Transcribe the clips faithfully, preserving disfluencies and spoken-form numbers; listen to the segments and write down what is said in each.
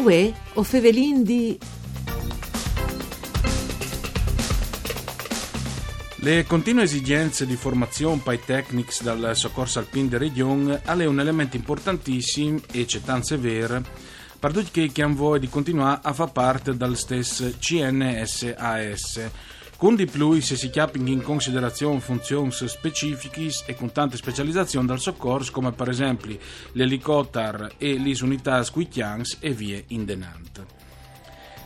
Uè, o fevelin di... Le continue esigenze di formazion pai tecnics dal socors alpin de region al è un element importantissim e cetant sever par ducj chei che han voie di continuar a far part dal stes C N S A S. Cun di plui se si cjapin in considerazion funzions specifichis e cun tante specializazion dal socors, come par esempli l'elicotar e lis unitâts cui cjans e vie indenant.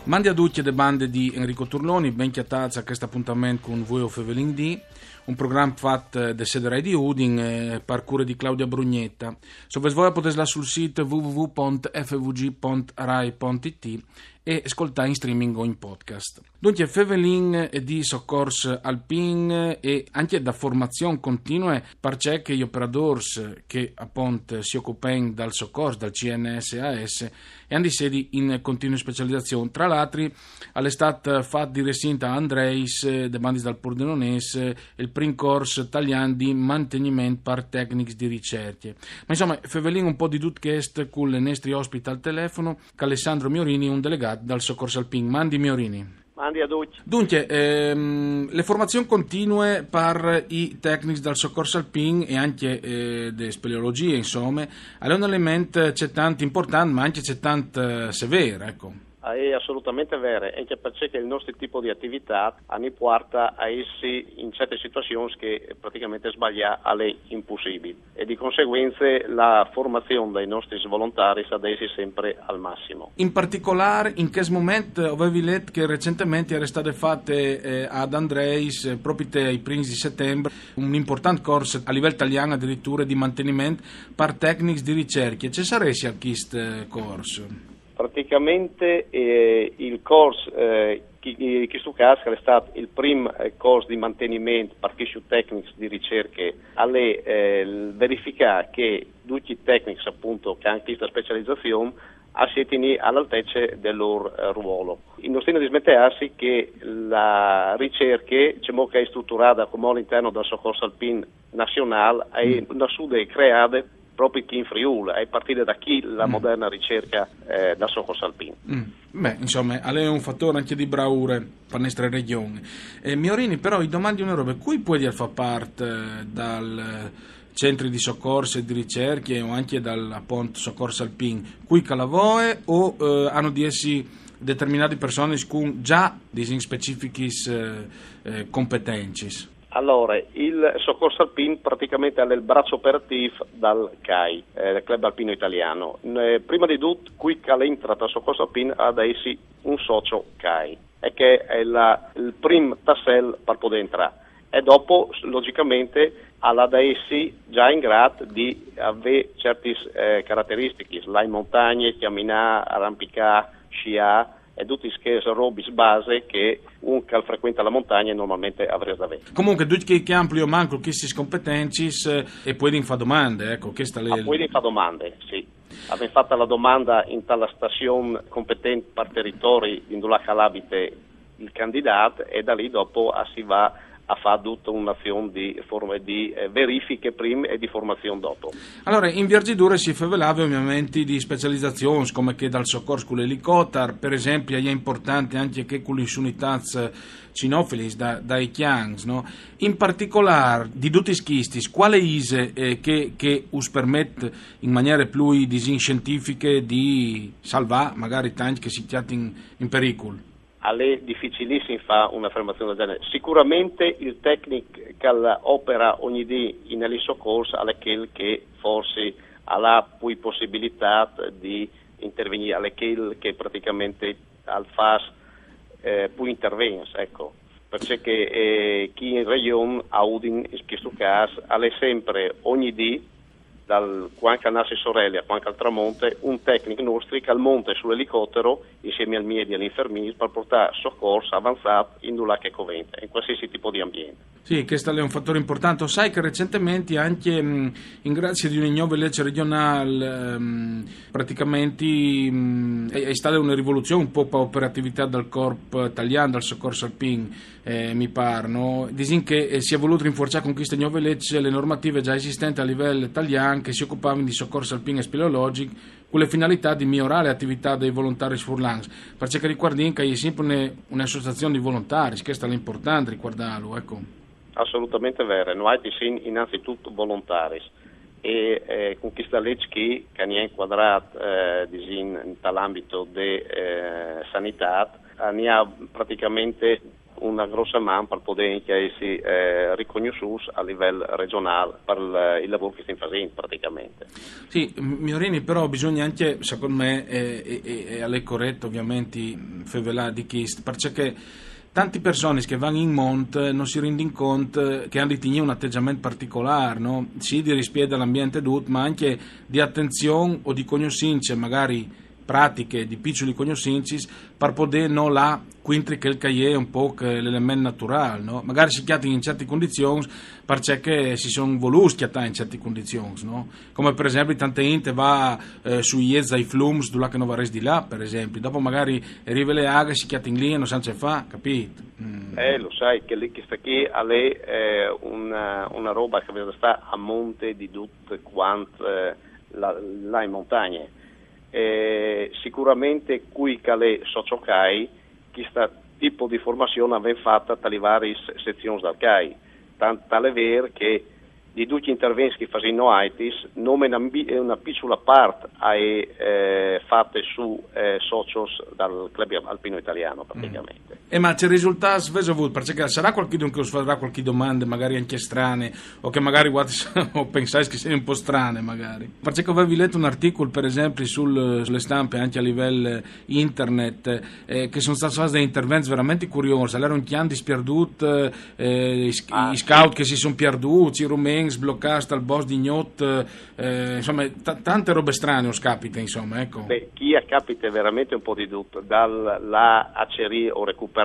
Mandi a ducj de bande di Enrico Turloni, ben cjatâts a chest apontament cun Vuê o fevelin di, un program fat de sede Rai di Udin, eh, par cure di Claudia Brugnetta. Se o vês voie o podês lâ sul sît w w w pont f v g pont rai pont i t e scoltâ in streaming o in podcast. Duncje, fevelin di socors alpin e ancje da formazion continue, parcè che i operadôrs che apont si ocupen dal socors, dal C N S A S, a àn di sedi in continue specializazion. Tra l'altri, al è stât fat di recint a Andreis, eh, de bandis dal Pordenonês, eh, il prin cors talian di manteniment par tecnics di ricercje. Ma insome, fevelìn un pôc di dut chest cul nestri ospit al telefono, ch'al è Sandro Miorini, un delegât dal Socors Alpin. Mandi Miorini. Mandi a ducj. Duncje, ehm, le formazion continue par i tecnics dal Socors Alpin e ancje, eh, de speleologjie, insome, al è un element cetant important, ma ancje cetant, eh, sever, eco. Ah, è assolutamente vere, ancje parcè che il nostri tipo di ativitât a ni puarta a jessi in certe situazions che praticamente sbaliâ al è impussibil. E di conseguence la formazion dai nostris volontaris a deve jessi sempre al massimo. In particolâr, in chest moment, eh, o vevi let che recentementri e jere stade fate, eh, ad Andreis, eh, propit ai prins di Setembar, un important cors a livel talian adiriture di manteniment par tecnics di ricercje. Ce saressie chist, eh, cors? Praticamente, eh, il cors, eh, chi, chi, chist cjâs al è stât il prin, eh, cors di manteniment par chescj tecnics di ricercje, al è, eh, il verificâ che ducj i tecnics, apont, che a àn cheste specializazion, a sietin a l'altece dal lôr, eh, ruolo. No stìn a dismenteâsi che la ricercje, cemût che e je struturade cumò a l'interno dal Socors Alpin nazionâl, e je nassude e creade propit chi in Friûl, e je partide da chi la moderne ricercje, eh, dal Socors Alpin. Mm. Beh, insome, al è un fatôr ancje di braure par nestre region. Eh, Miorini, però, i domandi une robe: cui puedial fâ part, eh, dal, eh, centri di socors e di ricercje o ancje dal, apont, Socors Alpin? Cui ch'al à voie o, eh, a àn di jessi determinadis personis cun za, disìn, specifichis, eh, eh, competencis? Alore, il Socors Alpin praticamente al è il braç operatîf dal CAI, eh, dal Club Alpino Italiano. Eh, prime di dut, cui ch'al jentre tal Socors Alpin al à da jessi un socio CAI, e chest al è il prin tassel par podê jentrâ. E dopo, logicamente, al à da jessi za in grât di vê ciertis, eh, carateristichis, lâ in montagne, cjaminâ, arampicâ, sciâ, e dutis chês robis base che un ch'al frecuente la montagne normalmente al varès da vê. Comuncue, ducj chei che a àn plui o mancul chestis competencis, eh, a puedin fâ domande, eco, cheste e je... A puedin fâ domande, sì. A vevin fat la domande inte stazion competente par teritori indulà ch'al abite il candidât, e da li dopo, eh, si va a fâ dute une azion di form-, di, eh, verifiche prin e di formazion dopo. Alore, in vierzidure si fevelave ovviamente di specializazions, come chê dal socors cul elicotar, par esempli, e je importante ancje chê cu lis unitâts cinofilis da, dai cjans, no? In particolâr, di dutis chestis, cuale ise, eh, chê, chê us permet in maniere plui, disìn, sientifiche di salvâ magari tancj che si cjatin in pericul? Al è dificilissim fâ une afermazion dal gjenar. Sigurementri il tecnic ch'al opere ogni dì in socors al è chel che forsit al à plui pussibilitât di intervignî, al è chel che pratichementri al fâs, eh, plui intervents, eco. Parcè che, eh, chi in regjon, a Udin, in chest câs, al è simpri, ogni dì, dal cuant ch'al nas in soreli a cuant ch'al tramonte, un tecnic nestri ch'al monte sul elicotero insiemi ai miedi e ai infermîrs par puartâ socors avanzâts indulà ch'al covente, in cualsisei tipo di ambient. Sì, chest al è un fatôr impuartant. O sai che recentementri ancje, mm, in grazie di une gnove leç regjonâl, ehm, pratichementri, mm, al è, al è stade une rivoluzion un pôc pe operativitât dal corp talian dal socors alpin, eh, mi pâr, no? Disìn che, eh, si è volût rinfuarçâ cun cheste gnove leç le normative za esistente a livel talian che si ocupavin di socors alpin e speleologjic, con la finalità di migliorare l'attività dei volontari furlans, perché ricordiamo che è sempre una, un'associazione di volontari, questo è l'importante ricordarlo, ecco. Assolutamente vero, noi siamo innanzitutto volontari e eh, con questa legge qui, che ne è inquadrata eh, in, in l'ambito della eh, sanità, ne ha praticamente una grossa man per poter essere eh, riconosciuti a livello regionale per il, il lavoro che stiamo facendo praticamente. Sì, Miorini, però bisogna anche, secondo me, eh, e, e, e è corretto ovviamente fevelà di chi, perché tanti personi che vanno in monte non si rendono conto che hanno di tenere un atteggiamento particolare, no? Sì, di rispetto all'ambiente tutto, ma anche di attenzione o di conoscenze magari pratiche di piccoli conoscenzi per poter non là quindi quel che è un po' l'elemento naturale, no? Magari si chiatta in certe condizioni perché si sono voluti chiattare in certe condizioni, no? Come per esempio tante gente va eh, sui iezzi ai flums dove che non va di là, per esempio, dopo magari arriva le aghe, si chiatta in lì e non sa ce fa, capito? Mm. Eh, lo sai che lì questa qui è eh, una, una roba che sta a monte di tutte quante eh, là in montagne. Eh, sicuramente qui che le sociocai questo tipo di formazione viene fatta dalle varie sezioni dal CAI, tanto tale vero che di tutti gli interventi che facciamo noi, nome una, una piccola parte è eh, fatta su eh, socios dal club alpino italiano praticamente. Mm. E ma c'è risultato, avete avuto, perché sarà qualcuno che us farà qualche domanda magari anche strane o che magari o pensate che siano un po' strane magari, perché avevi letto un articolo per esempio sul, sulle stampe anche a livello internet eh, che sono stati fatti dei interventi veramente curiosi, allora un chian di spierdut eh, i, ah, i scout sì. Che si sono perduti, i rumeni sbloccati al boss di Gnot eh, insomma t- tante robe strane us capita insomma, ecco. Beh, chi capita veramente un po' di tutto, dalla acerì o recuperare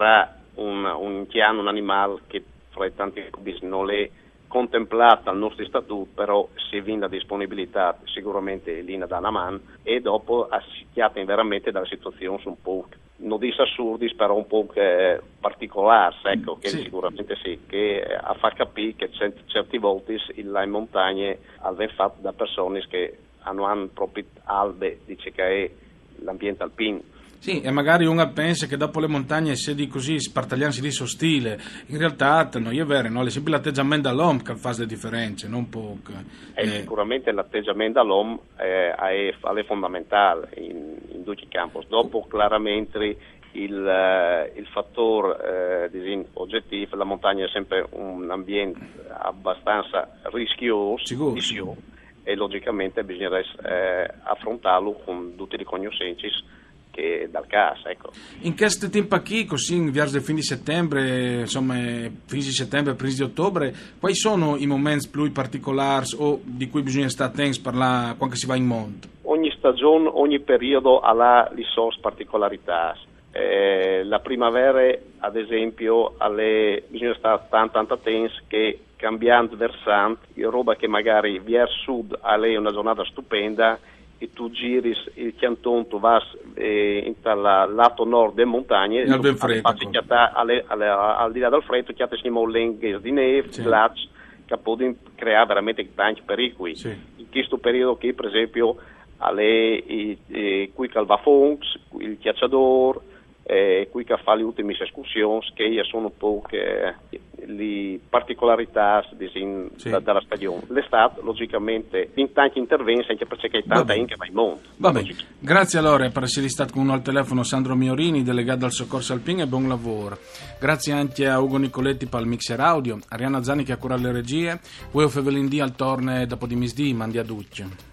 un, un chian, un animale che fra i tanti hobby non è contemplata al nostro statuto, però se vin la disponibilità sicuramente è linea da una man e dopo si chiatta veramente dalle situazioni un po' non dico assurdis, però un po' che particolars, ecco, che sì. Sicuramente sì, che a fa capire che cert- certi volti là in montagne al ven fatto da persone che non hanno proprio albe, dice che è l'ambiente alpino. Sì, e magari uno pensa che dopo le montagne si di così spartagliarsi di so stile. In realtà non è vero, no? È sempre l'atteggiamento dell'uomo che fa le differenze, non poco. Eh, eh. Sicuramente l'atteggiamento dell'uomo eh, è, è fondamentale in, in tutti i campi. Dopo chiaramente il, eh, il fattore eh, oggettivo, la montagna è sempre un ambiente abbastanza rischioso, sicuro, sicuro. E logicamente bisognerà eh, affrontarlo con tutte le conoscenze che dal caso, ecco. In questo tempo qui, così in verso il fine di settembre, insomma, fine di settembre, primi di ottobre, quali sono i momenti più particolari o di cui bisogna stare attenti per la, quando si va in monte? Ogni stagione, ogni periodo ha le sue particolarità. Eh, la primavera, ad esempio, alle, bisogna stare tanto, tanto attenti che cambiando versante, roba che magari verso sud alle una giornata stupenda e tu giri il canton, tu vas eh, in tal lato nord delle montagne, al, freddo, alle, alle, al di là dal freddo, chiatti siamo lenghe di neve, sì. Glacci, che possono creare veramente tanti pericoli. Sì. In questo periodo qui, per esempio, alle, i, i, qui Calvafonx, il Chiacciador, eh, qui che fa le ultime escursioni, che sono un po' che, le particolarità disin, sì. Da, dalla stagione. L'estate, logicamente, in tanti interventi, anche perché c'è tanta gente che va in monte. Va bene. Grazie allora per essere stato con noi al telefono Sandro Miorini, delegato al Soccorso Alpin, e buon lavoro. Grazie anche a Ugo Nicoletti per il mixer audio, Arianna Zani che ha curato le regie, voi Fevelin D al torne dopo di misdì, mandi a duccio.